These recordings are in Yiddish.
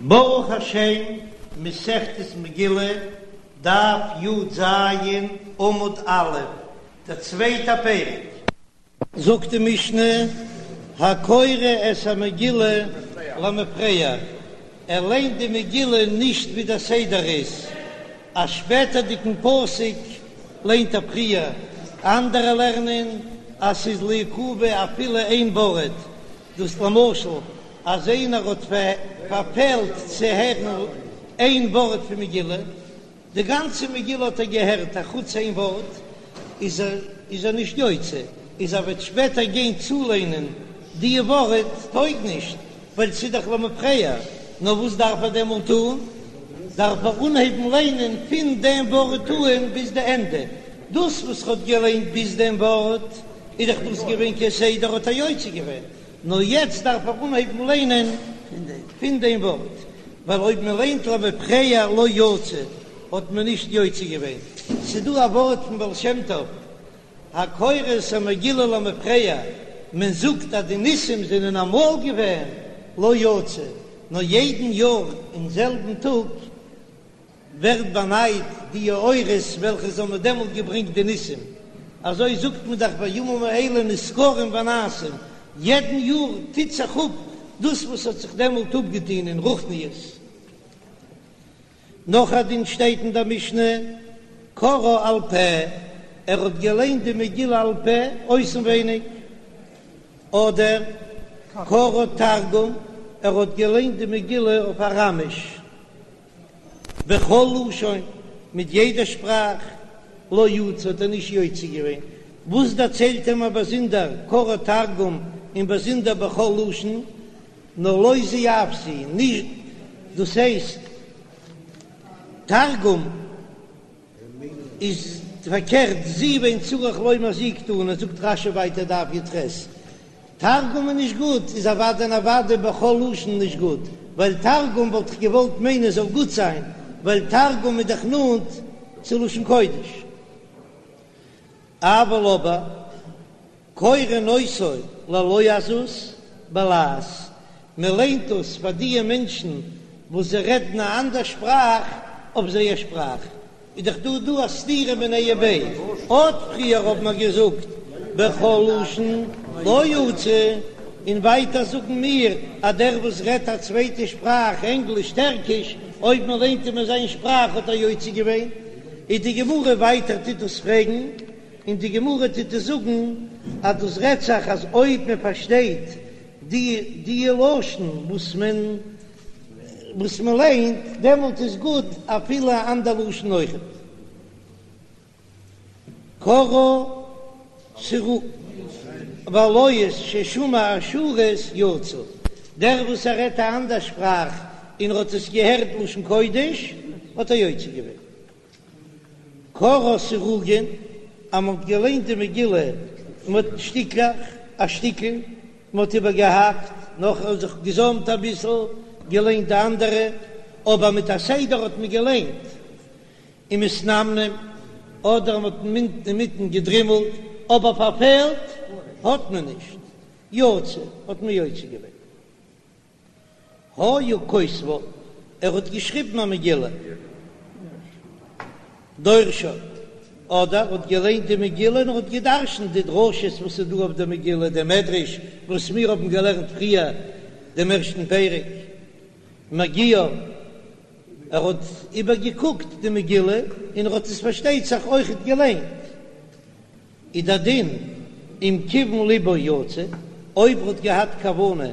ברוך השם, מסכת מגילה, דף י"ז, עמוד א', דער צווייטער פרק. זאגט די משנה, הקורא את המגילה למפרע, ער ליינט די מגילה נישט ווי דער סדר איז, א שפעטערדיגן פסוק ליינט ער פריער, אנדערע לערנען אז ס'איז לעיכובא אפילו איין ווארט, דאס למשל אז איינער האט פארפעלט צו הערן איין ווארט פון מגילה, די גאנצע מגילה האט ער געהערט אחוץ איין ווארט, איז ער איז ער נישט יוצא, איז ער וועט שפעטער גיין צוליינען די ווארט טויג נישט, ווייל ס'איז דאך למפרע, נאר וואס דארף ער דעמאלט טון? דארף ער אנהייבן ליינען פון דעם ווארט אן ביז די ענדע, דאס וואס ער האט געליינט ביז דעם ווארט איז דאך דאס געווען כסדר האט ער יוצא געווען, נאר יעצט דארף ער אנהייבן ליינען פון דעם ווארט, ווייל אויב מען ליינט למפרע לא יצא האט מען נישט יוצא געווען. ס'דא א ווארט פון בעל שם טוב, הקורא את המגילה למפרע, מען זאגט אז די ניסים זענען אמאל געווען לא יצא, נאר יעדן יאר אין זעלבן טאג ווערט באנייט די אורות וועלכע זיי האבן דעמאלט געברענגט די ניסים, אזוי זאגט מען דאך והימים האלה נזכרים ונעשים, יעדן יאר טוט זיך אפ דאס וואס האט זיך דעמאלט אפגעטון אין רוחניות. נאך א דין שטייט אין דער משנה, קראה על פה, ער האט געליינט די מגילה על פה אויסנווייניג, אדער קראה תרגום, ער האט געליינט די מגילה אויף אראמיש. בכל לשון, מיט יעדע שפראך, לא יצא האט ער נישט יוצא געווען, וואס דערציילט ער מיר באזונדער קראה תרגום און באזונדער בכל לשון, נאר לא זו אף זו, נישט דאס הייסט תרגום. איז פארקערט זו ואין צריך לומר זו קתני, זאגט רש"י ווייטער דף י"ח, תרגום איז נישט גוט, איז אוודאי און אוודאי בכל לשון נישט גוט, ווייל תרגום וואלט איך געוואלט מיינען זאל גוט זיין, ווייל תרגום איז דאך נאנט צו לשון קודש. אבל אבער קורין אותו ללועזות בלעז, מען ליינט דאס פאר דיע מענטשן וואס זיי רעדן א אנדער שפראך אויף זייער שפראך, איז דאך דא דא א סתירה מיניה וביה, אט פריער האבן מיר געזאגט בכל לשון לא יצא, און ווייטער זאגן מיר אז דער וואס רעדט א צווייטע שפראך, ענגליש, טערקיש, אויב מען ליינט אים אין זיין שפראך האט ער יוצא געווען, איז די גמרא ווייטער טוט דאס פרעגן. און די גמרא טוט עס זאגן אז דאס רעדט זיך אז אויב מען פארשטייט די די לשון וואס מען וואס מען ליינט דעמאלט איז גוט אפילו א אנדער לשון אויכעט. קראה סרו והלועז ששמע אשורית יצא, דער וואס ער רעדט א אנדער שפראך און ער האט עס געהערט לשון קודש האט ער יוצא געווען. קראה סירוגין, אז מען האט געליינט די מגילה מיט שטיקלעך, א שטיקל, מען האט איבערגעהאקט, נאכער זיך געזאמט אביסל, געליינט די אנדערע, אבער מיט א סדר האט מען געליינט, ומתנמנם, אדער מען האט אינמיטן געדרימלט, אבער פארפעלט האט מען נישט, יצא, האט מען יוצא געווען. היה כותבה, ער האט געשריבן א מגילה, דורשה, אדער האט געליינט די מגילה און ער האט גע'דרש'נט די דרשות וואס איז דא אויף די מגילה, די מדרש וואס מיר האבן געלערנט פריער דעם ערשטן פרק, מגיהה, ער האט איבערגעקוקט די מגילה און ער האט עס פארשטייט זיך אויכעט געליינט. איז דער דין אם כיוון לבו יצא, אויב ער האט געהאט כוונה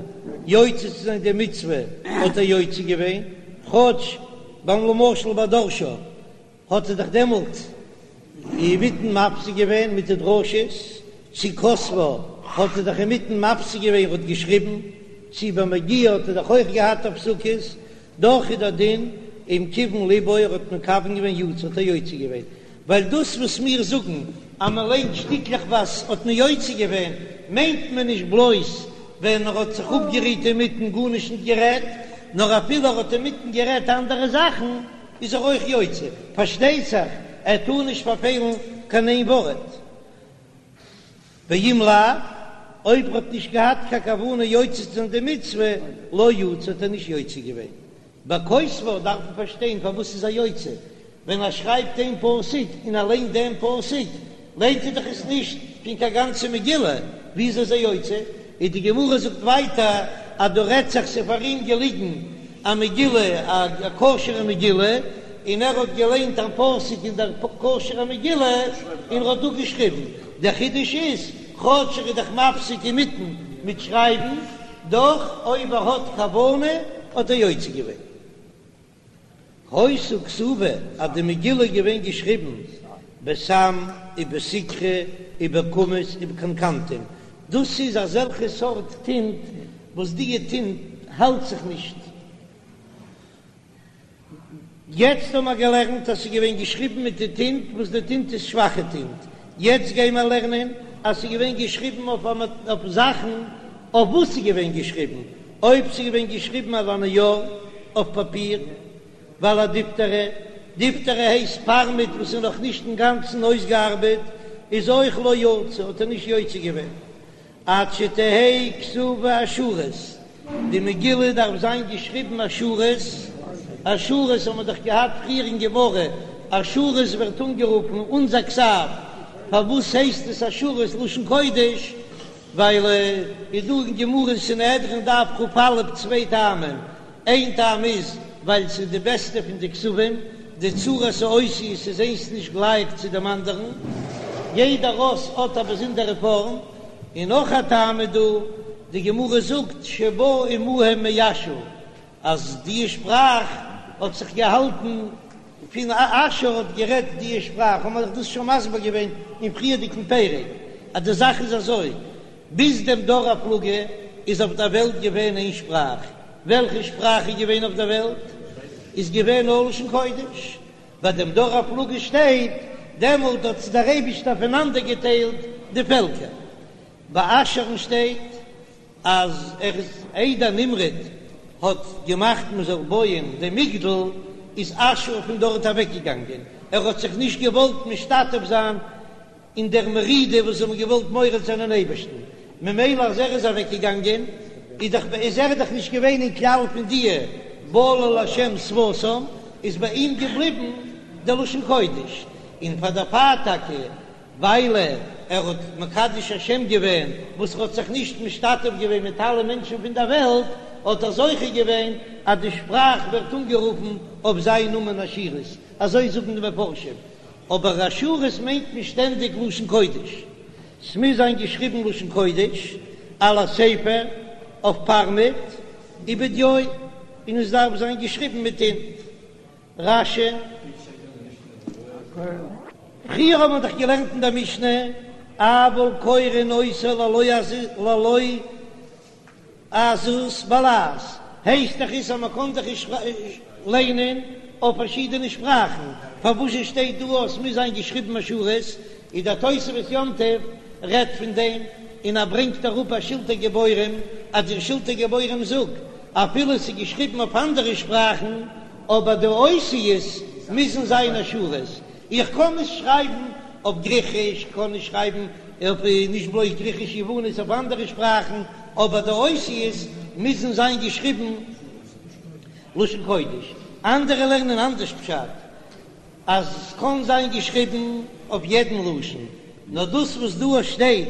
יוצא צו זיין די מצוה האט ער יוצא געווען, כאטש ביים למשל ביי דרשה האט ער דאך דעמאלט אינמיטן מפסיק געווען מיט די דרשות, צו כותבה האט ער דאך אינמיטן מפסיק געווען ער האט געשריבן, צו ביי מגיהה האט ער דאך אויך געהאט הפסקות, דאך איז דער דין אם כיוון לבו ער האט מכוון געווען יצא האט ער יוצא געווען, ווייל דאס וואס מיר זאגן אז מען ליינט שטיקלעכווייז האט מען יוצא געווען, מיינט מען נישט בלויז ווען ער האט זיך אפגערוהט אינמיטן גארנישט נישט גערעדט, נאר אפילו ער האט אינמיטן גערעדט אנדערע זאכן איז ער אויך יוצא, פארשטייט זיך ער טאר נישט פארפעלן קיין איין ווארט. ואם לאו, אויב ער האט נישט געהאט קיין כוונה יוצא צו זיין די מצוה, לא יצא האט ער נישט יוצא געווען. בכותבה דארף מען פארשטיין פארוואס איז ער יוצא, ווען ער שרייבט איין פסוק און ער ליינט דעם פסוק, ליינט ער דאך עס נישט פון קיין גאנצע מגילה, וויאזוי איז ער יוצא? און די גמרא זאגט ווייטער אז דא רעדט זיך ס'איז פאר אים געליגן א מגילה, א כשר'ע מגילה, און ער האט געליינט א פסוק אין דער כשר'ע מגילה און ער האט דא געשריבן. דער חידוש איז, כאטש ער איז דאך מפסיק אינמיטן מיט שרייבן, דאך אויב ער האט כוונה האט ער יוצא געווען. היתה כתובה אז די מגילה איז געווען געשריבן בסם ובסיקרא ובקומוס ובקנקנתום, דאס איז אזעלכע סארט טינט וואס דיע טינט האלט זיך נישט. יעצט האבן מיר געלערנט אז ס'איז געווען געשריבן מיט די טינט וואס די טינט איז שוואכע טינט, יעצט גייען מיר לערנען אז ס'איז געווען געשריבן אויף זאכן אויף וואס ס'איז געווען געשריבן, אויב ס'איז געווען געשריבן על הנייר, אויף פאפיר, ועל הדיפתרא, דיפתרא הייסט פארמעט וואס איז נאך נישט אינגאנצן אויסגעארבעט, איז אויך לא יצא, האט ער נישט יוצא געווען עד שתהא כתובה אשורית, די מגילה דארף זיין געשריבן אשורית, אשורית האבן מיר דאך געהאט פריער אין גמרא, אשורית ווערט אנגערופן אונזער כתב, פארוואס הייסט עס אשורית לשון קודש? ווייל איז דא אין גמרא אין סנהדרין דף כ"א צוויי טעמים, איין טעם איז ווייל ס'איז די בעסטע פון די כתבים, די צורת האותיות איז איינס נישט גלייך צו דעם אנדערן, יעדער אות האט א באזונדערע פארם, און נאך א טעם איז דא, די גמרא זאגט שבא עמהם מאשור, אז די שפראך האט זיך געהאלטן פון אשור האט גערעדט די שפראך, האבן מיר דאך דאס שוין מסביר געווען אין פריערדיגן פרק, אז די זאך איז אזוי, ביז דעם דור הפלגה איז אויף דער וועלט געווען איין שפראך, וועלכע שפראך איז געווען אויף דער וועלט? איז געווען נאר לשון קודש, ביי דעם דור הפלגה שטייט, דעמאלט האט דער אייבישטער פונאנדערגעטיילט די פעלקער, ביי אשור'ן שטייט אז ער איז איידער נמרוד האט געמאכט מען זאל בויען דעם מגדל איז אשור פון דארט אוועק געגאנגען, ער האט זיך נישט געוואלט משתתף זיין אין דער מרידה וואס זיי האבן געוואלט מורד זיין אין אייבערשטן, ממילא אז ער איז אוועק געגאנגען איז דאך איז ער דאך נישט געווען אין כלל פון דיע בלל השם שפתם, איז ביי אים געבליבן דער לשון קודש, און פאר דערפאר טאקע ווייל ער האט מקדש השם געווען, וואס ער האט זיך נישט משתתף געווען מיט אלע מענטשן פון דער וועלט, האט ער זוכה געווען אז די שפראך ווערט אנגערופן אויף זיין נאמען אשורית, אזוי זאגן די מפרשים, אבער אשורית מיינט מען שטענדיג לשון קודש, ס'מוז זיין געשריבן לשון קודש, על הספר, אויף פארמעט, ובדיו, און עס דארף זיין געשריבן מיט טינט. רש"י. פריער האט מען דאך געלערנט אין דער משנה, אבל קורין אותה ללועזות בלעז, הייסט דאך עס אז מען קען דאך נישט ליינען אויף פארשידענע שפראכן, פארוואס זשע שטייט דא אז עס מוז זיין געשריבן אשורית? איז דער תוספות יום טוב רעדט פון דעם, און ער ברענגט אראפ א שלטי גבורים, אז דער שלטי גבורים זאגט אפילו עס איז געשריבן אויף אנדערע שפראכן, אבער די אותיות מוזן זיין אשורית, איך קען נישט שרייבן אויף גריכיש, איך קען נישט שרייבן אויף נישט בלויז גריכיש יוונית אויף אנדערע שפראכן, אבער די אותיות מוזן זיין געשריבן לשון קודש. אנדערע לערנען אנדערש פשט, אז עס קען זיין געשריבן אויף יעדן לשון, נאר דאס וואס דא שטייט,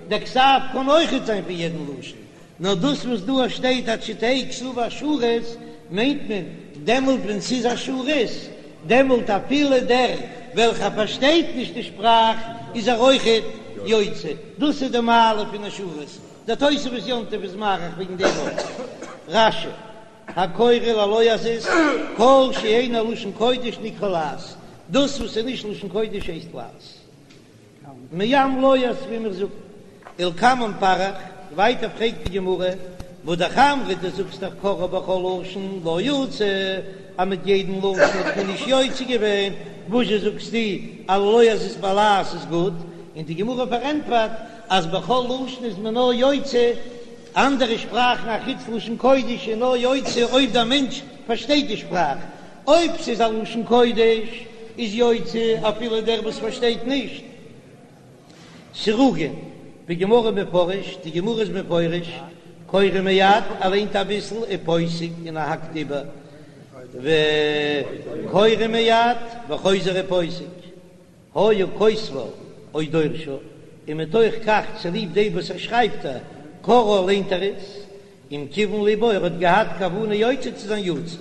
דער כתב קען אויכעט זיין פון יעדן לשון, נאר דאס וואס דא שטייט עד שתהא כתובה אשורית, מיינט מען דעמאלט ווען ס'איז אשורית, דעמאלט אפילו דער וועלכער פארשטייט נישט די שפראך איז ער אויכעט יוצא, דאס איז די מעלה פון אשורית, דער תוספות יום טוב איז מאריך וועגן דעם אויך. רש"י, הקורא ללועזות, כל שאינו לשון קודש נקרא לעז, דאס וואס איז נישט לשון קודש הייסט לעז. מעם לועז ווי מיר זאגן ולקמן פריך, ווייטער פרעגט די גמרא, והא אמרת דו זאגסט דאך קראה בכל לשון לא יצא, אז מיט יעדן לשון האט מען נישט יוצא געווען, וואזשע זאגסטו אז ללועזות בלעז איז גוט, און די גמרא פארענטפערט אז בכל לשון איז מען נאר יוצא, אנדערע שפראכן אחוץ לשון קודש איז נאר יוצא אויב דער מענטש פארשטייט די שפראך, אויב ס'איז א לשון קודש איז יוצא אפילו דער וואס פארשטייט נישט. סירוגין, בגמרא מפרש, די גמרא איז מפרש, קורא מעט, ער ליינט אביסל, ופוסק און ער האקט איבער. וקורא מיד וחוזר ופוסק, היה כותבה או דורשה, און מתוך כך צוליב דעם וואס ער שרייבט א קוראה ליינט ער עס, אם כיוון לבו ער האט געהאט כוונה יוצא צו זיין יצא.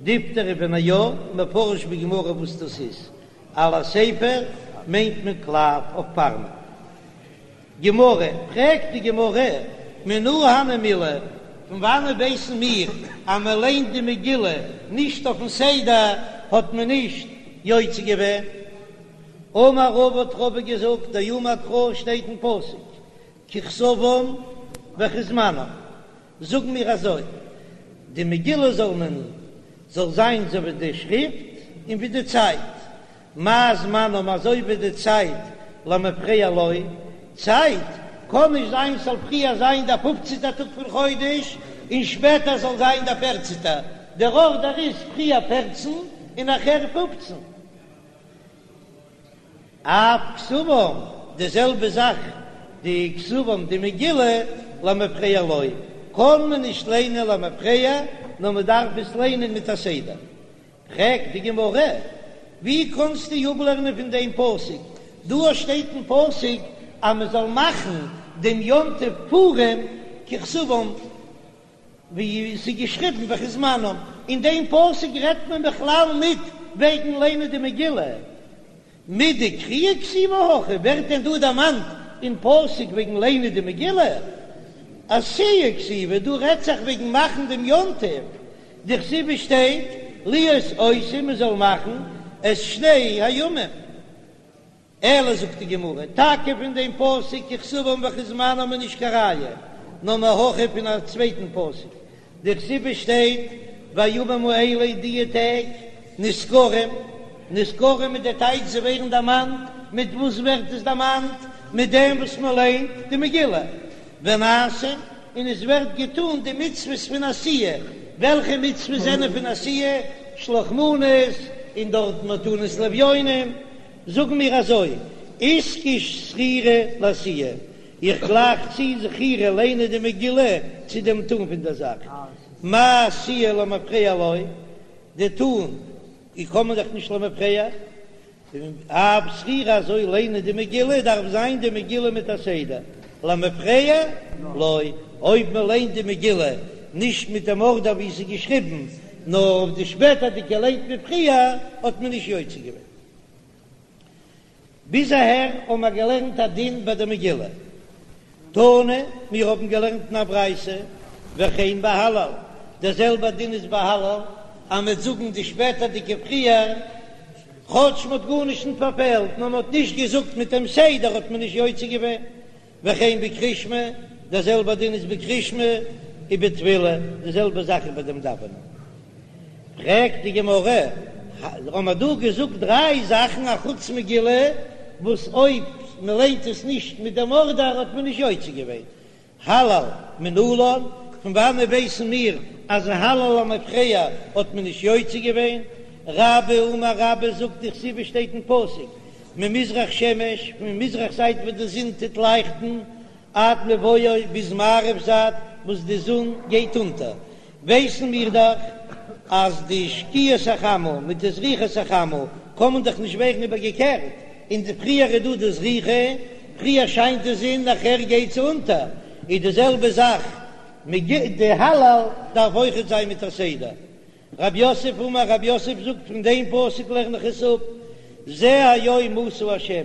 דיפתרא ונייר, מפרש בגמרא וואס דאס איז, על הספר מיינט מען קלף אויף פארמעט. גמרא, פרעגט די גמרא, מנא הני מילי, פון וואנען ווייסן מיר אז מען ליינט די מגילה נישט אויפן סדר האט מען נישט יוצא געווען? אמר רבא האט רבא געזאגט, דאמר קרא שטייט אין פסוק ככתבם וכזמנם, זאגן מיר אזוי, די מגילה זאל מען זאל זיין אזוי ווי די שריפט און ווי די צייט, מה זמנם אזוי ווי די צייט למפרע לא, צייט קען נישט זיין ס'זאל פריער זיין דער פופצנטער טאג פון חודש און שפעטער זאל זיין דער פערצנטער, דער ארדער איז פריער פערצן און נאכער פופצן. אף כתבם, די זעלבע זאך די כתבם די מגילה למפרע לא, קען מען נישט ליינען למפרע נאר מען דארף עס ליינען מיט א סדר. פרעגט די גמרא, ווי קענסטו אפלערנען פון דעם פסוק? דא שטייט אין פסוק אז מען זאל מאכן דעם יום טוב פורים ככתבם, ווי עס איז געשריבן וכזמנם, אין דעם פסוק רעדט מען בכלל ניט וועגן ליינען די מגילה. מידי קריאה כתיבא הכא, ווערט דען דא דערמאנט אין פסוק וועגן ליינען די מגילה? עשיה כתיבא, דא רעדט זיך וועגן מאכן דעם יום טוב, דכתיב שטייט להיות עושים מען זאל מאכן את שני הימים. אלא זאגט די גמרא, טאקע פון דעם פסוק ככתבם וכזמנם איז נישט קיין ראיה, נאר מהכא פון א צווייטן פסוק, דכתיב שטייט והימים האלה דיע טעג נזכרים, נזכרים מיט די טייטש זיי ווערן דערמאנט, מיט וואס ווערט עס דערמאנט? מיט דעם וואס מען ליינט די מגילה, ונעשים, און עס ווערט געטאן די מצוות פון עשיה, וועלכע מצוות זענען פון עשיה? שלח מנות, און דארט מתנות לאביונים, זאגן מיר אזוי, איתקש זכירה לעשיה, איך גלייך צו זכירה ליינען די מגילה צו דעם טאן פון דער זאך, מה עשיה למפרע לא, די טאן קען מען דאך נישט למפרע, אף זכירה אזוי ליינען די מגילה דארף זיין די מגילה מיט א סדר, למפרע לא, אויב מען ליינט די מגילה נישט מיט דעם ארדער ווי עס איז געשריבן, נאר אויף די שפעטערדיגע ליינט מען פריער, האט מען נישט יוצא געווען. ביז אהער האבן מיר געלערנט א דין ביי די מגילה. תנא, מיר האבן געלערנט אין א ברייתא, וכן בהלל, דער זעלבער דין איז ביי הלל, אז מ'וועט זאגן די שפעטערדיגע פריער, כאטש מ'האט גארנישט נישט פארפעלט, נאר מ'האט נישט געזאגט מיט דעם סדר האט מען נישט יוצא געווען. וכן בקריאת שמע, דער זעלבער דין איז בקריאת שמע ובתפילה, די זעלבע זאך איז ביי דעם דאווענען. פרעגט די גמרא, האבן מיר דא געזאגט דריי זאכן אחוץ מגילה, וואס אויב מען ליינט עס נישט מיט דעם ארדער האט מען נישט יוצא געווען, הלל מנלן, פון וואנען ווייסן מיר אז הלל למפרע האט מען נישט יוצא געווען? רבה אמר רבה זאגט דכתיב שטייט אין פסוק ממזרח שמש, פון מזרח זייט וואו די זון טוט לייכטן, עד מבואו ביז מערב זייט וואס די זון גייט אונטער, ווייסן מיר דאך אז די שקיעת החמה מיט די זריחת החמה קען מען דאך נישט ווערן איבערגעקערט, און די פריער איז דא די זריחה, פריער שיינט די זון נאכער גייט זי אונטער, איז די זעלבע זאך מיט די הלל דארף אויכעט זיין מיט א סדר. רב יוסף אמר רב יוסף זאגט פון דעם פסוק לערן איך עס אפ, זה היום עשה השם,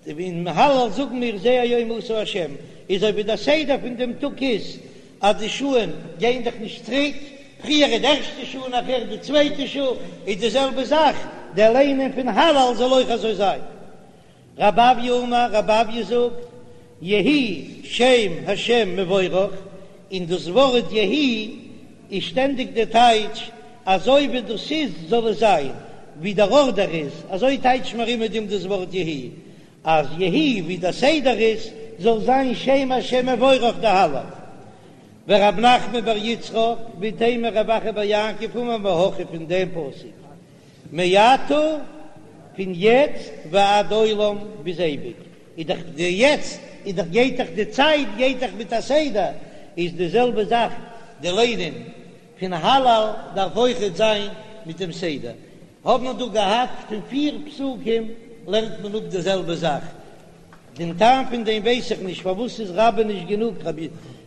אין הלל זאגן מיר זה היום עשה השם, איז אזוי ווי דער סדר פון דעם טאג איז אז די שעה'ן גייען דאך נישט צוריק, פריער איז די ערשטע שעה נאכער די צווייטע שעה, איז די זעלבע זאך דער ליינען פון הלל זאל אויך אזוי זיין. רב אויא אמר, רב אויא זאגט, יהי שם השם מבורך, און דאס ווארט יהי איז שטענדיג די טייטש אזוי ווי דאס איז זאל עס זיין, ווי דער ארדער איז, אזוי טייטשט מען ארום מיט דעם דאס ווארט יהי, אז יהי ווי דער סדר איז זאל זיין שם השם מבורך די הלל. ורב נחמן בר יצחק, ואיתימא רב אחא בר יעקב אמר מהכא פון דעם פסוק מעתה פון יעצט ועד עולם ביז אייביג, איז דאך די יעצט איז דאך גייט דאך די צייט גייט דאך מיט א סדר, איז די זעלבע זאך די ליינען. פון הלל דארף אויכעט זיין מיט דעם סדר. האב מיר דא געהאט פון פיר פסוקים לערנט מען אפ די זעלבע זאך. דעם טעם פון דעם ווייס איך נישט, פארוואס איז רבה נישט גענוג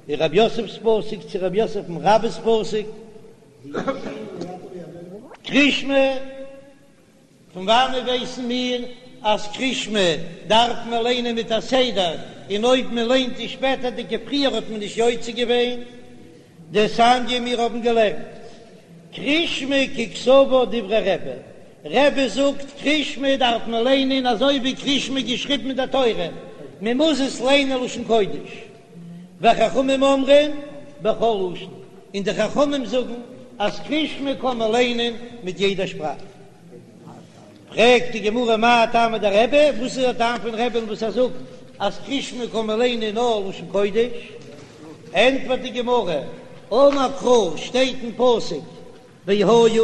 רב יוסף'ס פסוק צו רב יוסף פון רבה'ס פסוק? קרישמע, פון וואנעט ווייסן מיר אז קרישמע דארף מען ליינען מיט א סדר, און אויב מען ליינט די שפעטערדיגע פריער האט מען נישט יוצא געווען? דתניא מיר האבן געלערנט קרישמע ככתבה דברי רבי, רבי זאגט קרישמע דארף מען ליינען אזוי ווי קרישמע געשריבן אין דער תורה, מען מוז עס ליינען לשון קודש, וחכמים אומרים בכל לשון, און די חכמים זאגן אז קרישמע קען מען ליינען מיט יעדע שפראך. פרעגט די גמרא מאי טעמא דרבי, וואס איז דער טעם פון רבי'ן וואס ער זאגט אז קרישמע קען מען ליינען נאר לשון קודש? ענטפערט די גמרא, אמר קרא, שטייט אין פסוק והיה,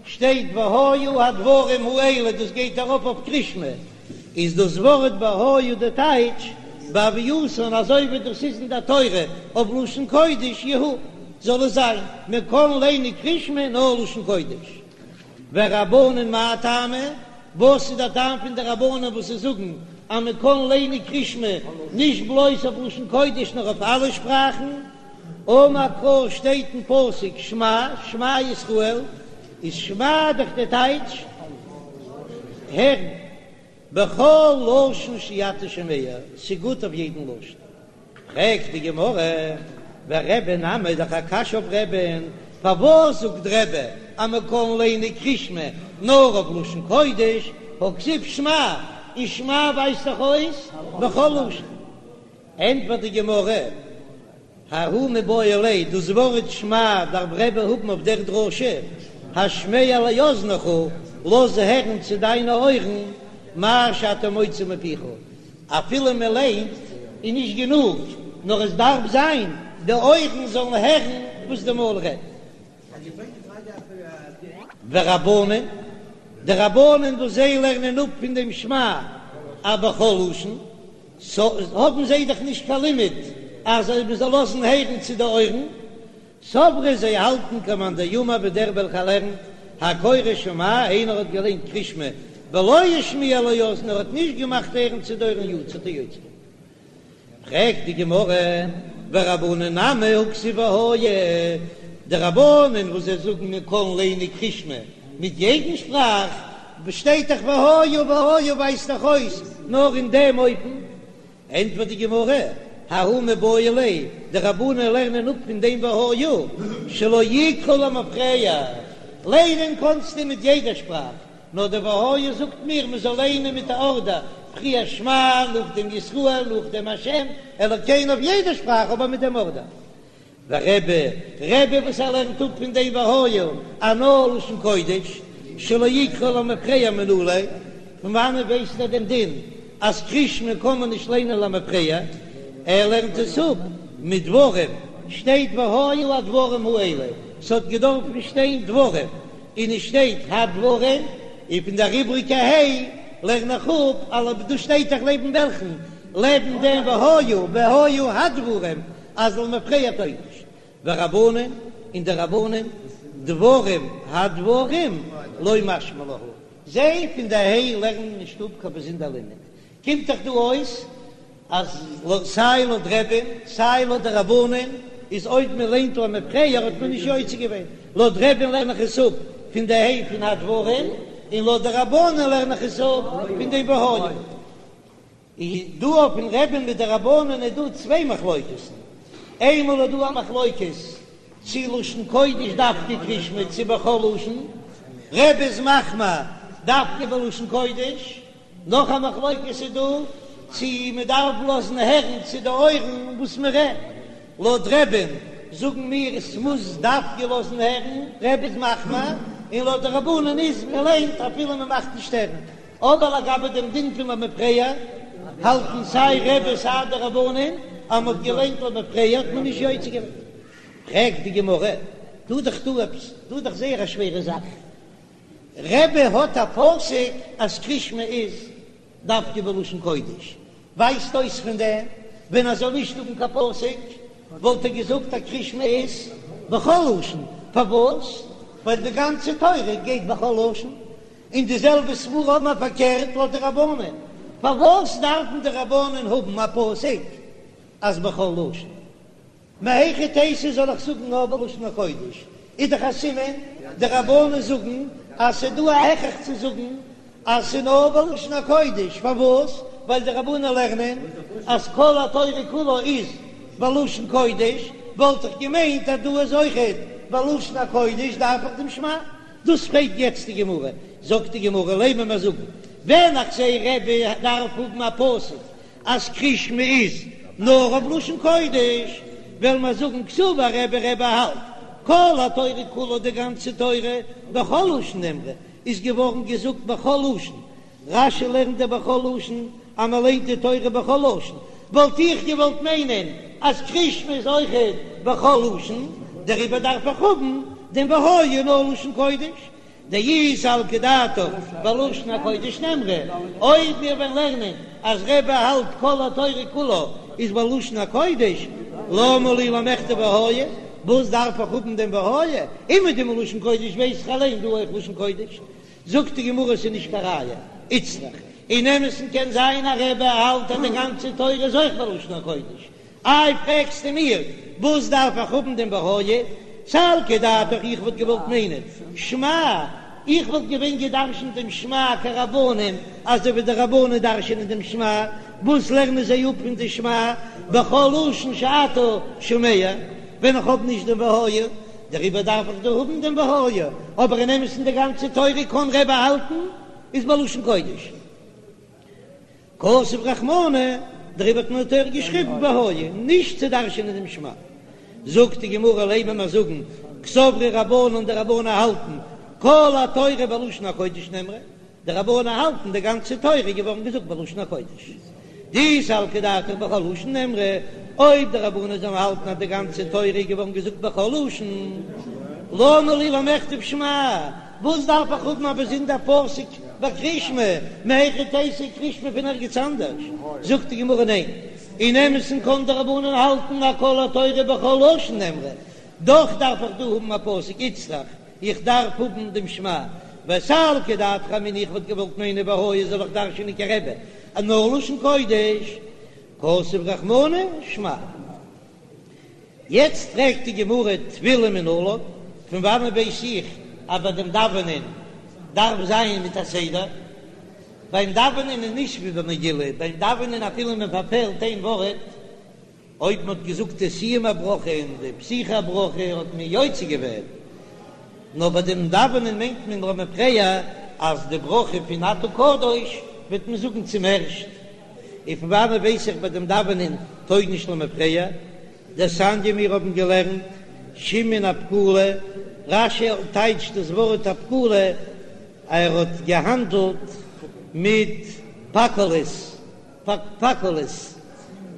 שטייט והיו הדברים האלה, דאס גייט ארויף אויף קרישמע, איז דאס ווארט והיה די טייטש בהוייתן אזוי ווי דאס איז אין דער תורה אויף לשון קודש יהו, זאל עס זיין, מען קען ליינען קרישמע נאר לשון קודש. ורבנן מאי טעמא? וואס איז דער טעם פון די רבנן וואס זיי זאגן אז מען קען ליינען קרישמע נישט בלויז אויף לשון קודש נאר אויף אלע שפראכן? אמר קרא שטייט אין פסוק שמע שמע ישראל, איז שמע דאך די טייטש הערן, בכל לשון שאתה שומע, ס'גוט אויף יעדן לשון. פרעגט די גמרא, ורבי נמי דאך א קשיא אויף רבי'ן, פארוואס זאגט רבי אז מען קען ליינען קרישמע נאר אויף לשון קודש, והכתיב שמע, און שמע ווייזט דאך אויס בכל לשון. ענטפערט די גמרא, ההוא מיבעי ליה, דאס ווארט שמע דארף רבי האבן אויף דער דרשה, השמע לאזניך, לאז הערן צו דיינע אויערן, מה שאתה מוציא מפיך, אפילו מען ליינט איז נישט גענוג, נאר עס דארף זיין די אויערן זאלן הערן וואס די מויל רעדט. ורבנן, די רבנן וואס זיי לערנען אפ פון דעם שמע אז בכל לשון, סא האבן זיי דאך נישט קיין לימוד אז מען זאל לאזן הערן צו די אויערן, סברי זיי האלטן כמאן דאמר ווי דער וועלכער לערנט הקורא שמע איינער האט געליינט קרישמע ולא השמיע לאזן ער האט נישט געמאכט הערן צו די אויערן יצא האט ער יוצא געווען. פרעגט די גמרא ורבנן נמי הכתיב והיה, די רבנן וואס זיי זאגן מען קען ליינען קרישמע מיט יעדן שפראך, שטייט דאך והיה והיה ווייזט דאך אויס נאר אין דעם אופן, ענטפערט די גמרא, ההוא מיבעי ליה, די רבנן לערנען אפ פון דעם והיה שלא יקרא למפרע, ליינען קענסטו מיט יעדע שפראך, נאר די והיה זאגט מיר מען זאל ליינען מיט א ארדער, פריער שמע, נאכדעם ישראל, נאכדעם השם אלוקינו אויף יעדע שפראך אבער מיט דעם ארדער. ורבי, רבי וואס ער לערנט אפ פון דעם והיה אז נאר לשון קודש, שלא יקרא למפרע מנא ליה, פון וואנעט ווייסט ער דעם דין אז קרישמע קען מען נישט ליינען למפרע, ער לערנט עס אפ מדברים, שטייט והיו הדברים האלה, ס'האט געדארפן שטיין דברים, און עס שטייט הדברים, און פון דער איבריגע ה' לערן איך אפ, אלא דא שטייט דאך לעבן וועלכן? לעבן דעם והיו, והיו הדברים, אז למפרע טויג נישט. ורבנן, און די רבנן, דברים הדברים לא משמע להו, זיי פון די ה' לערנען נישט אפ קיין באזונדער לימוד, קומט דאך דא אויס אז סיי לויט רבי'ן סיי לויט די רבנן איז אויב מען ליינט למפרע האט מען נישט יוצא געווען, לויט רבי'ן לערן איך עס אפ פון די ה' פון הדברים, און לויט די רבנן לערן איך עס אפ פון דעם והיה. איז דא אויפן רבי'ן מיט די רבנן איז דא צוויי מחלוקת'ן, איינמאל איז דא א מחלוקת צי לשון קודש דווקא קרישמע צי בכל לשון, רבי איז מחמיר דווקא בלשון קודש, נאך א מחלוקת איז דא צי מען דארף לאזן הערן צו די אויערן וואס מען רעדט, לויט רבי'ן זאגן מיר עס מוז דווקא לאזן הערן, רבי איז מחמיר, און לויט די רבנן איז מען ליינט אפילו מען מאכט נישט הערן, אבער לגבי דעם דין פון למפרע האלטן סיי רבי סיי די רבנן אז מען האט געליינט למפרע האט מען נישט יוצא געווען. פרעגט די גמרא, דא איז דאך דא עפעס, דא איז דאך זייער א שווערע זאך, רבי האט א פסוק אז קרישמע איז דווקא בלשון קודש, ווייזט אויס פון דעם ווען ער זאל נישט האבן קיין פסוק וואלט ער געזאגט אז קרישמע איז בכל לשון. פארוואס? ווייל די גאנצע תורה גייט בכל לשון, און די זעלבע סברא האבן מיר פארקערט לויט די רבנן, פארוואס דארפן די רבנן האבן א פסוק אז בכל לשון? מהיכי תיתי זאל איך זאגן נאר בלשון הקודש? איז דאך א סימן די רבנן זאגן אז ס'איז דא א הכרח צו זאגן אז ס'איז נאר בלשון הקודש, פארוואס? ווייל די רבנן לערנען אז כל התורה כולה איז בלשון קודש, וואלט איך געמיינט אז דא איז אויכעט בלשון הקודש דארף איך דעם שמע. דאס פרעגט יעצט די גמרא, זאגט די גמרא לימא מיר זאגן ווען איך זע רבי דארף האבן א פסוק אז קריאת שמע איז נאר אויף לשון קודש, וועלן מיר זאגן קסבר רבי רבי האלט כל התורה כולה די גאנצע תורה בכל לשון נאמרה איז געווארן געזאגט בכל לשון, רש"י לערנט דער בכל לשון אז מען ליינט די תורה בכל לשון, וואלט איך געוואלט מיינען אז קריאת שמע איז אויכעט בכל לשון, דעריבער דארף איך האבן דעם והיה נאר לשון קודש, דאי סלקא דעתך בלשון הקודש נאמרה, אויב מיר וועלן לערנען אז רבי האלט כל התורה כולה איז בלשון הקודש, למה לי למכתב והיה, וואס דארף איך האבן דעם והיה, אומעדום לשון קודש ווייס איך אליין דא אויך לשון קודש, זאגט די גמרא ס'איז נישט קיין ראיה, איצטריך, אין אמת'ן קען זיין אז רבי האלט אז די גאנצע תורה איז אויך בלשון הקודש, איי פרעגסטו מיר וואס דארף איך האבן דעם והיה, סלקא דעתך איך וואלט געוואלט מיינען שמע, איך וואלט געווען געדרשנט דעם שמע כרבנן אזוי ווי די רבנן דרשנען דעם שמע, וואס לערנען זיי אפ פון די שמע בכל לשון שאתה שומע, ווען איך האב נישט דעם והיה, דעריבער דארף איך דא האבן דעם והיה, אבער אין אמת'ן די גאנצע תורה קען רבי האלטן איז בלשון קודש. כתב רחמנא, דעריבער האט מען אין תורה געשריבן והיה, נישט צו דרש'ענען דעם שמע. זאגט די גמרא לימא מיר זאגן, קסברי רבנן די רבנן האלטן כל התורה בלשון הקודש נאמרה, די רבנן האלטן די גאנצע תורה איז געווארן געזאגט בלשון הקודש. דאי סלקא דעתך בכל לשון נאמרה, אויב די רבנן זאלן האלטן אז די גאנצע תורה איז געווארן געזאגט בכל לשון, למה לי למכתב שמע, וואס דארף איך האבן א באזונדער פסוק ביי קריאת שמע, מהיכי תיתי קריאת שמע פון ערגעץ אנדערש? זאגט די גמרא ניין, אין אמת'ן קען די רבנן האלטן אז כל התורה בכל לשון נאמרה, דאך דארף איך דא האבן א פסוק איצטריך, איך דארף האבן דעם שמע, וסלקא דעתך אמינא איך וואלט געוואלט מיינען והיה זאל איך דרש'ענען כרבי אז נאר לשון קודש, כתב רחמנא שמע. יעצט פרעגט די גמרא תפילה מנלן, פון וואנען ווייס איך אז ביי דעם דאווענען דארף זיין מיט א סדר? ביים דאווענען איז נישט ווי ביי מגילה, ביים דאווענען אפילו מען פארפעלט איין ווארט, אויב מען האט געזאגט די סיום הברכה און די פתיחה הברכה האט מען יוצא געווען, נאר ביי דעם דאווענען מיינט מען למפרע אז די ברכה פון אתה קדוש וועט מען זאגן צום ערשט, און פון וואנעט ווייס איך ביי דעם דאווענען טויג נישט למפרע? דתניא מיר האבן געלערנט שמעון הפקולי, רש"י טייטשט דאס ווארט הפקולי ער האט געהאנדלט מיט פקולית. פקולית,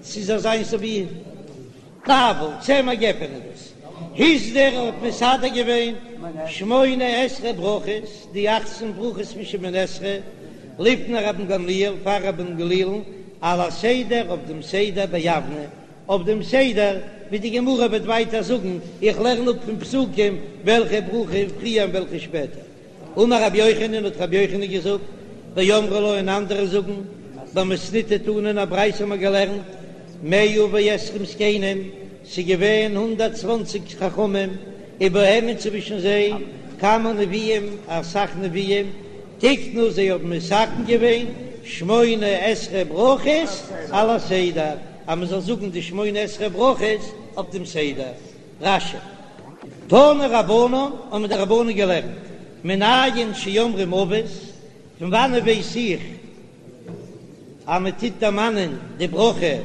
ס'איז אזוינס ווי נבל, צמר גפן איז דאס. הסדיר האט מסדר געווען שמונה עשרה ברכות, די אכצן ברכות פון שמונה עשרה, לפני רבן גמליאל, פאר רבן גמליאל'ן, על הסדר אויף דעם סדר ביבנה, אויף דעם סדר ווי די גמרא וועט ווייטער זאגן, איך לערן אפ פון פסוקים וועלכע ברכה פריער און וועלכע שפעטער. אמר רבי יוחנן, האט רבי יוחנן געזאגט, ואמרי לה און אנדערע זאגן, במתניתא תנא אין א ברייתא האבן מיר געלערנט, מאה ועשרים זקנים, ס'איז געווען הונדערט צוואנציג חכמים, ובהם און צווישן זיי כמה נביאים, אסאך נביאים, תיקנו זיי האבן מתקן געווען שמונה עשרה ברכות על הסדר, אז מען זאל זאגן די שמונה עשרה ברכות אויף דעם סדר. רש"י. תנו רבנן, האבן די רבנן געלערנט, מנין שאומרים אבות, פון וואנען ווייס איך אז מען טוט דערמאנען די ברכה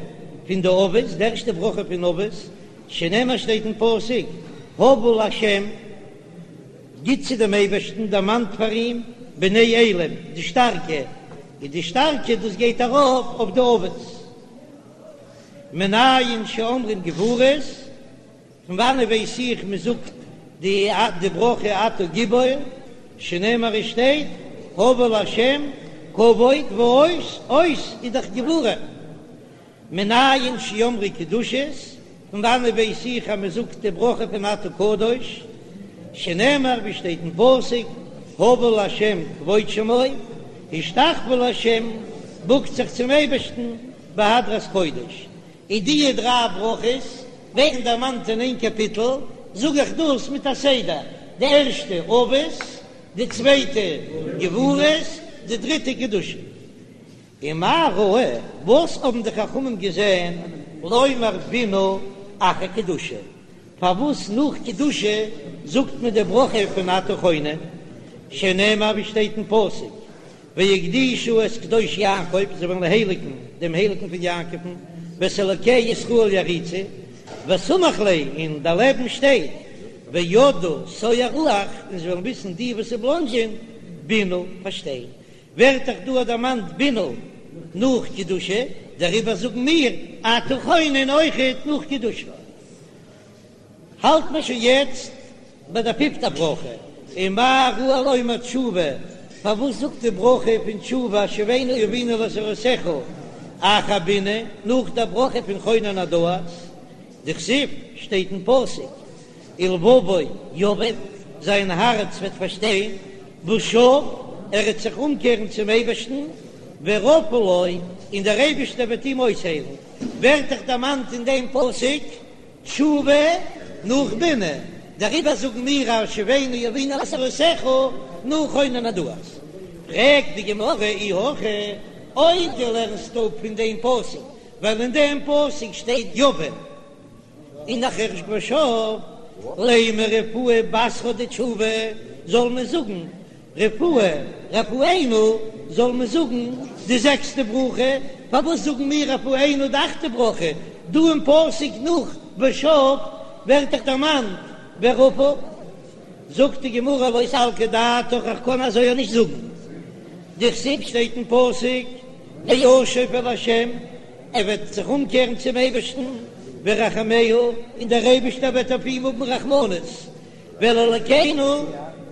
פון די אבות, די ערשטע ברכה פון אבות, שנאמר שטייט אין פסוק, הבו לה', גיט צו דעם אייבערשטן, דערמאנט פאר אים, בני אלים, די שטארקע, און די שטארקע דאס גייט ארויף אויף די אבות. מנין שאומרים גבורות, פון וואנען ווייס איך מען זאגט די די ברכה אתה גיבור, שנאמר עס שטייט הבו לה' כבוד ועוז, עוז איז דאך גבורה. מנין שאומרים קדושות, פון וואנען ווייס איך אז מען זאגט די ברכה פון אתה קדוש? שנאמר ווי שטייט אין פסוק, הבו לה' כבוד שמו, השתחוו לה', בוקט זיך צום אייבערשטן בהדרת קודש. און די דריי ברכות ווערן דערמאנט אין איין קאפיטל, זאג איך דאס מיט א סדר, די ערשטע אבות, די צווייטע גבורות, די דריטע קדושה. ומה ראו, וואס האבן די חכמים געזען, לומר בינה אחר קדושה, פארוואס נאך קדושה זאגט מען די ברכה פון אתה חונן, שנאמר ווי שטייט אין פסוק, והקדישו את קדוש יעקב, זיי וועלן הייליגן דעם הייליגן פון יעקב'ן, ואת אלוקי ישראל יעריצו, וסמיך ליה, און דערלעבן שטייט, וידעו תועי רוח, און זיי וועלן וויסן די וואס בלאנדזשען, בינה, פארשטיין. ווערט דאך דא דערמאנט בינה נאך קדושה, דעריבער זאגן מיר אתה חונן אויכעט נאך קדושה. האלט מען שוין יעצט ביי דער פיפטע ברכה, ומה ראו לומר תשובה, פארוואס זאגט די ברכה פון תשובה השיבנו אבינו לתורתך אחר בינה, נאך דער ברכה פון חונן הדעת, דכתיב, שטייט אין פסוק, ולבבו יבין, זיין הארץ וועט פארשטיין, ושב, ער וועט זיך אומקערן צום אייבערשטן, ורפא לו, און דער אייבערשטער וועט אים אויסהיילן, ווערט דאך דערמאנט אין דעם פסוק תשובה נאך בינה, דעריבער זאגן מיר השיבנו אבינו לתורתך נאך חונן הדעת. פרעגט די גמרא אי הכי, אויב דו לערנסט אפ פון דעם פסוק, ווייל אין דעם פסוק שטייט יבין, און נאכהער ושב, לימא רפואה בתרה דתשובה, זאל מען זאגן רפואה, רפאנו, זאל מען זאגן די זעקסטע ברכה, פארוואס זאגן מיר רפאנו די אכטע ברכה, דא אין פסוק נאך ושב ווערט דאך דערמאנט ורפא, זאגט די גמרא לא סלקא דעתך איך קען אזוי אויך נישט זאגן, דכתיב שטייט אין פסוק וישוב אל ה' ער וועט זיך אומקערן צום אייבערשטן, וירחמהו, און דער אייבערשטער וועט אויף אים האבן רחמנות, ואל אלקינו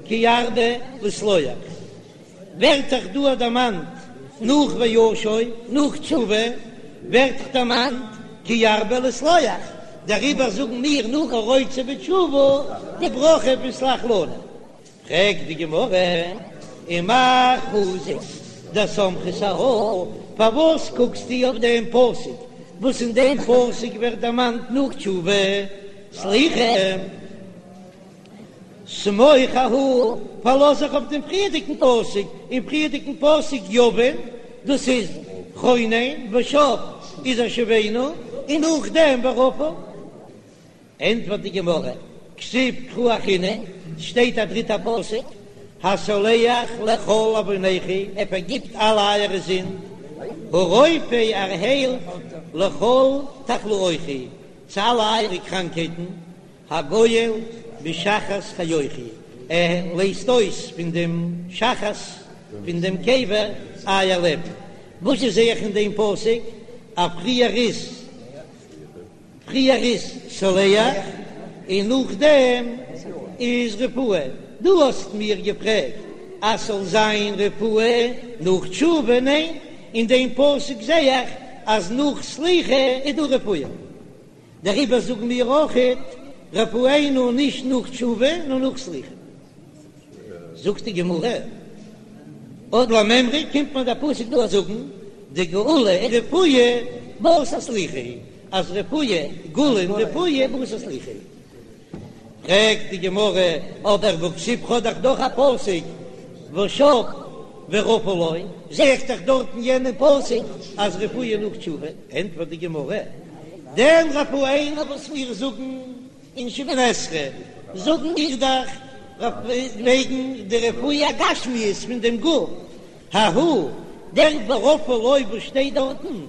כי ירבה לסלוח. ווערט דאך דא דערמאנט נאך וישוב, נאך תשובה, ווערט דאך דערמאנט כי ירבה לסלוח, דעריבער זאגן מיר נאך הרוצה בתשובה די ברכה פון סלח לנו. פרעגט די גמרא, ומאי חזית דסמכת אהא, פארוואס קוקסטו אויף דעם פסוק וואס אין דעם פסוק ווערט דערמאנט נאך תשובה סליחה? סמוך אהא, פארלאז זיך אויף דעם פריערדיגן פסוק, אין פריערדיגן פסוק יבין, דאס איז חונן, ושב איז השיבנו, און נאכדעם ורפא. ענטפערט די גמרא, כתיב קרא אחרינא, שטייט א דריטע פסוק, הסולח לכל עוונכו, ער פארגיבט אלע אייערע זינד, הרופא ער היילט לכל תחלואיכו, צו אלע אייערע קראנקהייטן, הגואל משחת חיוכו, ער לייזט אויס פון דעם שחת פון דעם קבר אייער לעבן. וואס זע איך אין דעם פסוק? אז פריער איז פריער איז סולח און נאכדעם איז רפואה. דו האסט מיר געפרעגט אז ס'זאל זיין רפואה נאך תשובה, ניין? אין דעם פסוק זע איך אז נאך סליחה איז דא רפואה. דעריבער זאגן מיר אויכעט רפאנו נישט נאך תשובה נאר נאך סליחה. זאגט די גמרא, עוד למימרא קומט מיר דער פסוק דא זאגן דגאולה ורפואה בתר סליחה, אז רפואה, גאולה און רפואה בתר סליחה. פרעגט די גמרא, אבער והכתיב כ'האב דאך דאך א פסוק ושב ורפא לו, זע איך דאך דארט אין יענעם פסוק אז רפואה נאך תשובה, ענטפערט די גמרא, דעם רפאנו וואס מיר זאגן אין שמונה עשרה זאגן מיר דאך וועגן די רפואה הגשמיות פון דעם גוף, ההוא דער ורפא לו וואס שטייט דארטן,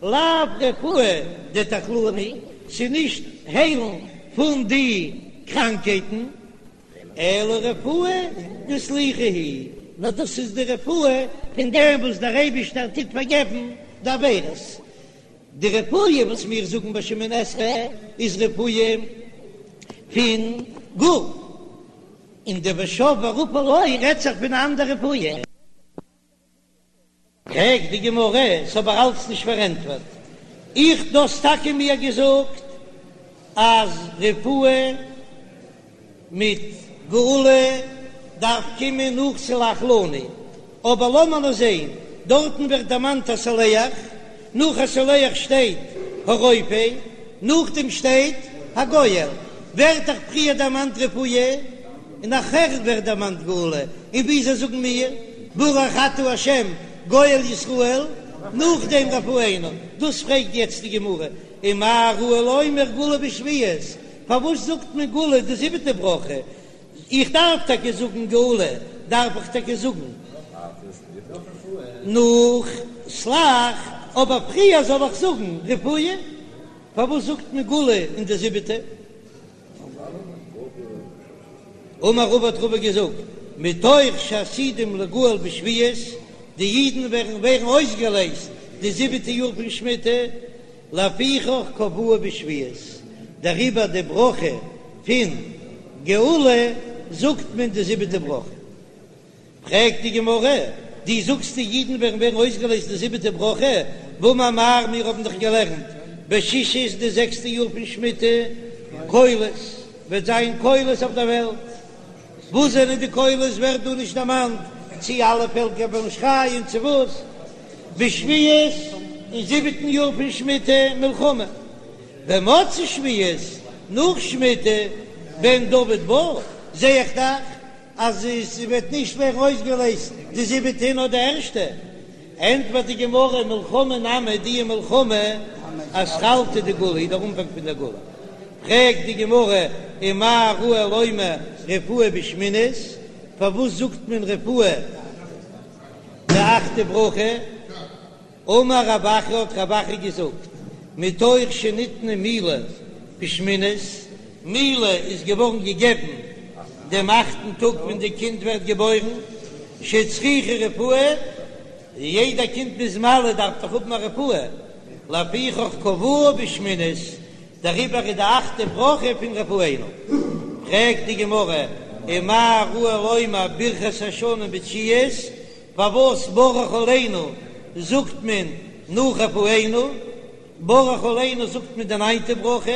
לאו רפואה דתחלואי היא, ס'איז נישט היילן פון די קראנקייטן, אלא רפואה דסליחה היא, נאר דאס איז די רפואה פון דעם וואס דער אייבישטער טוט פארגעבן די עבירות. די רפואה וואס מיר זאגן ביי שמונה עשרה איז רפואה פון גוף, און די ושב ורפא לו רעדט זיך פון א אנדער רפואה. פרעגט די גמרא, ס'איז אבער אלץ נישט פארענטפערט, איך דו האסט טאקע מיר געזאגט אז רפואה מיט. גאולה דארף קומען נאך סלח לנו, אבער לאמיר נאר זעהן, דארטן ווערט דערמאנט הסולח, נאך הסולח שטייט הרופא, נאכדעם שטייט הגואל, ווערט דאך פריער דערמאנט רפואה, און נאכער ווערט דערמאנט גאולה, און וויאזוי זאגן מיר ברוך אתה ה' גואל ישראל, נאכדעם רפאנו, דאס פרעגט יעצט די גמרא, ומה ראו לומר גאולה בשביעית, פארוואס זאגט מען גאולה די זיבעטע ברכה, איך דארף טאקע זאגן גאולה, דארף איך טאקע זאגן נאך סלח, אבער פריער זאל איך זאגן רפואה, פארוואס זאגט מען גאולה אין די זיבעטע? אמר רבא האט רבא געזאגט, מתוך שעתידים ליגאל בשביעית, די אידן ווערן ווערן אויסגעלייזט די זיבעטע יאר פון שמיטה, לפיכך קבעוה בשביעית, דעריבער די ברכה פון גאולה זאגט מען די זיבעטע ברכה. פרעגט די גמרא, דו זאגסט די אידן וועלן ווערן אויסגעלייזט די זיבעטע ברכה, והאמר מר מיר האבן דאך געלערנט בשישית די זעקסטע יאר פון שמיטה, קולות, וועט זיין קולות אויף דער וועלט, וואס זענען די קולות ווערט דא נישט דערמאנט, צי אלע פעלקער וועלן שרייען צו וואס, בשביעית אין זיבעטן יאר פון שמיטה מלחמה, במוצאי שביעית נאך שמיטה בן דוד בא, זע איך דאך אז עס וועט נישט ווערן אויסגעלייזט די זיבעטע נאר די ערשטע, ענטפערט די גמרא מלחמה נמי די מלחמה אתחלתא דגאולה איז דער אנפאנג פון דער גאולה, פרעגט די גמרא ומה ראו לומר רפואה בשמינית, פארוואס זאגט מען רפואה די אכטע ברכה? אמר רב אחא האט רב אחא געזאגט, מתוך שניתנה מילה בשמינית, מילה איז געווארן געגעבן דעם אכטן טאג ווען די קינד ווערט געבוירן, שצריכה רפואה, יעדע קינד מ'איז מל דארף דאך האבן א רפואה, לפיכך קבעוה בשמינית, דעריבער איז די אכטע ברכה פון רפאנו. פרעגט די גמרא, ומה ראו לומר ברכת השנים בתשיעית, פארוואס ברך עלינו זאגט מען נאך רפאנו? ברך עלינו זאגט מען די ניינטע ברכה.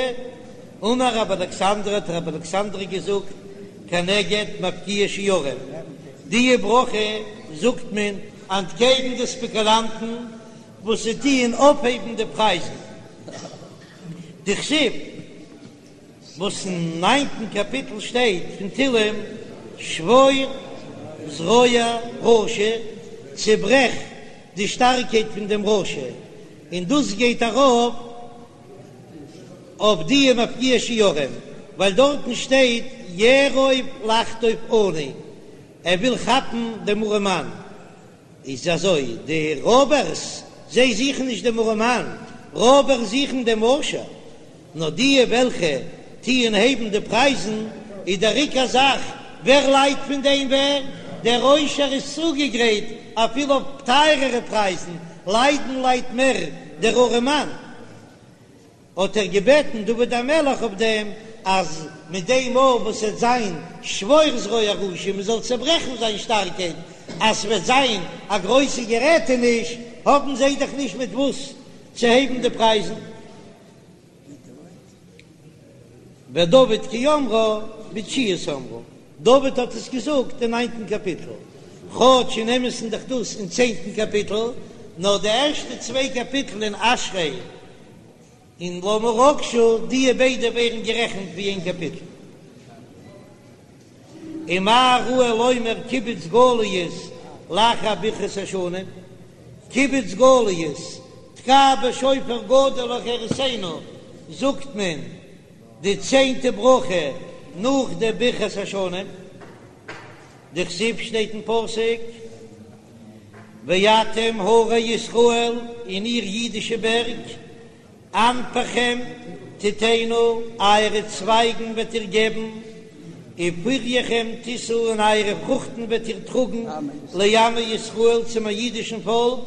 אמר רבי אלכסנדרי האט רבי אלכסנדרי געזאגט כנגד מפקיעי שערים, די ברכה זאגט מען אנטקעגן די ספעקולאנטן וואס זיי טוען אויפהייבן די פרייזן, דכתיב. וואס אין ניינטן קאפיטל שטייט פון תהלים, שבור זרוע רשע, צעברעך די שטארקייט פון דעם רשע, און דאס גייט ארויף אויף די מפקיעי שערים, ווייל דארטן שטייט יארוב לחטוף עני, ער וויל כאפן דעם ארעמאן. איז אזוי, די רויבערס זיי זוכן נישט דעם ארעמאן, רויבערס זוכן דעם עושר, נאר די וועלכע טוען הייבן די פרייזן, איז דער עיקר זאך ווער ליידט פון דעם ווער, דער עושר איז צוגעגרייט אפילו אויף טייערערע פרייזן, ליידן ליידט מער דער ארעמאן. האט ער געבעטן דוד המלך אויף דעם אז מיט דעם מאל וואס עט זיין שבור זרוע רשע מען זאל צעברעכן זיין שטארקייט אז ס'וועט זיין א גרויסע גערעטעניש האבן זיי דאך נישט מיט וואס צו הייבן די פרייזן. ודוד כי אמרה בתשיעית אמרה, דוד האט עס געזאגט אין ניינטן קאפיטל, כאטש אין אמת'ן דאך דאס אין צענטן קאפיטל, נאר די ערשטע צוויי קאפיטל אין אשרי און למה רגשו, דיע ביידע ווערן גערעכנט ווי איין קאפיטל. ומה ראו לומר קיבוץ גליות לאחר ברכת השנים, קיבוץ גליות, תקע בשופר גדול לחירותנו, זאגט מען די צענטע ברכה נאך די ברכת השנים. דכתיב שטייט אין פסוק, ואתם הרי ישראל, און איר אידישע בערג, ענפכם תתנו, אייערע צווייגן וועט איר געבן, ופריכם תשאו, און אייערע פרוכטן וועט איר טראגן, לעמי ישראל, צו מיין אידישן פאלק,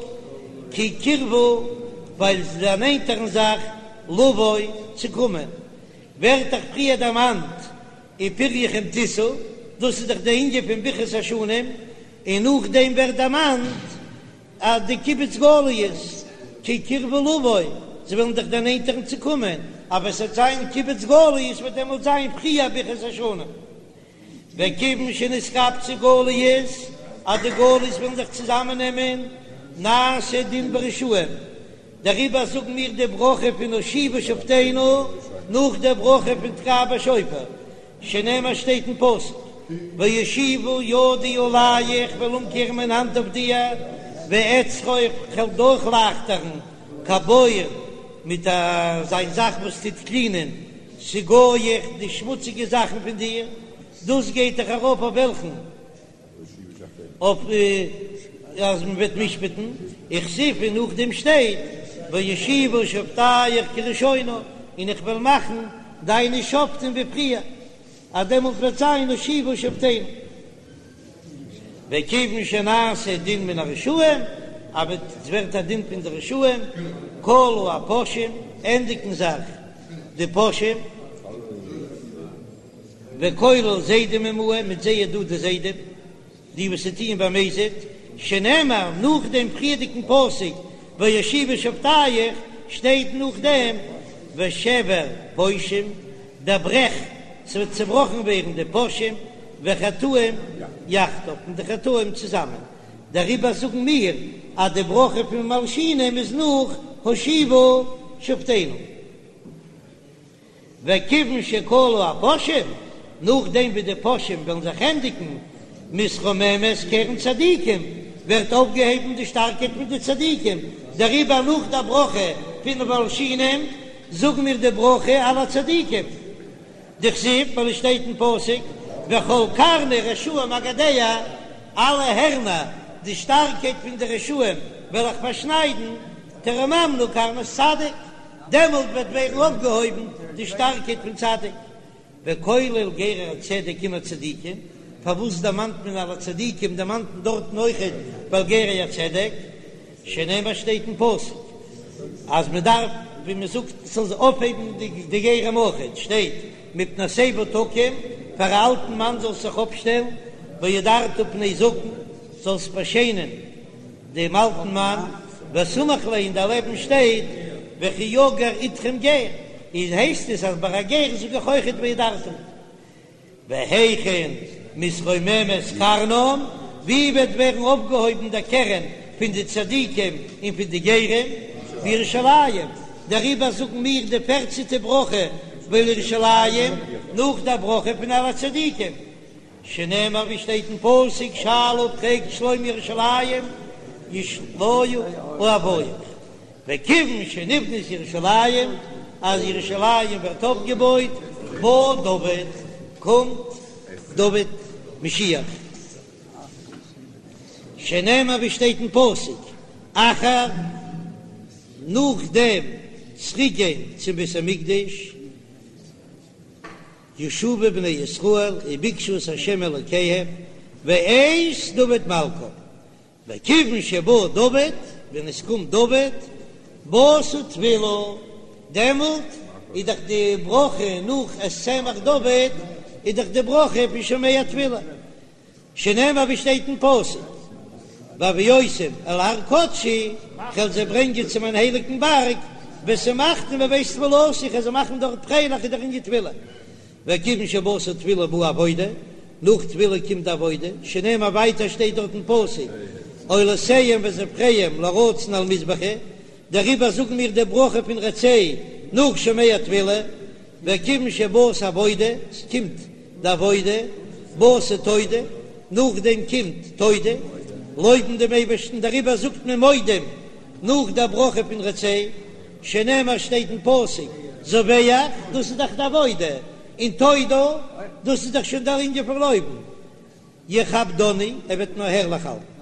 כי קרבו, ווייל זיי דערנענטערן זיך, לבוא, צו קומען. ווערט דאך פריער דערמאנט ופריכם תשאו, דאס איז דאך די ענין פון ברכת השנים, און נאכדעם ווערט דערמאנט אז די קיבוץ גליות כי קרבו לבוא, זיי וועלן זיך דערנענטערן צו קומען, אבער עס וועט זיין קיבוץ גליות וועט דעמאלט זיין פריער ברכת השנים. וכיוון שנתקבצו גליות, אז די גליות וועלן זיך צוזאמען נעמען, נעשה דין ברשעים, דעריבער זאגן מיר די ברכה פון השיבה שופטינו נאך די ברכה פון תקע בשופר, שנאמר שטייט אין פסוק, והשיבה ידי עליך כ'וועל אומקערן מיין האנט אויף דיר, ואצרור כ'וועל דורכלייכטערן כבור מיט אזא זאך וואס טוט קלינען סגאיך די שמוציגע זאכן פון דיר, דאס גייט דאך ארויף אויף וועלכן? אויף אז מען וועט משפט'ן, וכתיב און נאכדעם שטייט ואשיבה שופטיך כראשונה, און איך וועל מאכן דיינע שופטים ווי פריער, אז דעמאלט וועט זיין השיבה שופטינו. וכיוון שנעשה דין מן הרשעים, אז עס ווערט א דין פון די רשעים, כלו הפושעים, ענדיגן זיך די פושעים, וכולל זדים עמהם, מיט זיי איז דא די זדים, די וואס ס'טוען במזיד, שנאמר נאך דעם פריערדיגן פסוק ואשיבה שופטיך, שטייט נאכדעם ושבר פושעים, דער ברעך, ס'וועט צעבראכן ווערן די פושעים, וחטאים יחדיו, און די חטאים צוזאמען, דעריבער זאגן מיר אז די ברכה פון מלשינים איז נאך השיבה שופטינו. וכיוון שכלו הפושעים, נאכדעם ווי די פושעים וועלן זיך ענדיגן, מתרוממת קרן צדיקים, ווערט אויפגעהויבן די שטארקייט פון די צדיקים, דעריבער נאך דער ברכה פון מלשינים זאגן מיר די ברכה על הצדיקים, דכתיב, ווייל עס שטייט אין פסוק, וכל קרני רשעים אגדע, אלע הערנער, די שטארקייט פון די רשעים וועל איך פארשניידן, תרוממנה קרנות צדיק. דעמאלט וועט ווערן אויפגעהויבן די שטארקייט פון צדיק, וכולל גרי הצדק עם הצדיקים, פארוואס דערמאנט מען על הצדיקים, דערמאנט מען דארטן אויכעט ועל גרי הצדק, שנאמר שטייט אין פסוק אז מען דארף ווי מען זאגט ס'זאל זיך אויפהייבן די גרים אויכעט, שטייט מפני שיבה תקום, פאר א אלטן מאן זאלסט זיך אויפשטעלן, והדרת פני זקן, זאלסט באשיינען. דעם אלטן מאן, וסמיך ליה און דערלעבן שטייט וכי יגור אתכם גר, איז הייסט עס אז ביי א גר זאג איך אויכעט והדרת. והיכן מתרוממת קרנם, ווי וועט ווערן אויפגעהויבן דער קרן פון די צדיקים און פון די גרים? בירושלים, דעריבער זאגן מיר די פערצנטע ברכה ולירושלים נאך דער ברכה פון על הצדיקים. שנאמר ווי שטייט אין פסוק שאלה פרעגט שלום ירושלים ישליו אוהביך, וכיוון שנבנית ירושלים אז ירושלים ווערט אויפגעבויט בא דוד קומט דוד משיח, שנאמר ווי שטייט אין פסוק אחר נאכדעם צוריקגיין צום בית המקדש. ישובו בני ישראל וביקשו את ה' אלוקיהם ואת דוד מלכם, וכיוון שבא דוד, ווען עס קומט דוד, באתה תפילה, דעמאלט איז דאך די ברכה נאך את צמח דוד, איז דאך די ברכה פון שומע תפילה. שנאמר ווי שטייט אין פסוק, והביאותים אל הר קדשי, כ'וועל זיי ברענגען צו מיין הייליגן בארג, ושמחתים בבית תפילתי, כ'וועל זיי מאכן דארט פרייליך איז דער ענין תפילה. וכיוון שבאתה תפילה באה עבודה, נאך תפילה קומט די עבודה, שנאמר ווייטער שטייט דארט אין פסוק, עולותיהם וזבחיהם לרצון על מזבחי, דעריבער זאגן מיר די ברכה פון רצה נאך שומע תפילה, וכיוון שבאת עבודה, ס'קומט די עבודה, באת תודה, נאכדעם קומט תודה, לויבן דעם אייבערשטן, דעריבער זאגט מען מודים נאך דער ברכה פון רצה, שנאמר שטייט אין פסוק, זבח, דאס איז דאך די עבודה, און תודה, דאס איז דאך שוין דער ענין פון לויבן, יכבדני, ער וועט מיר הערליך האלטן.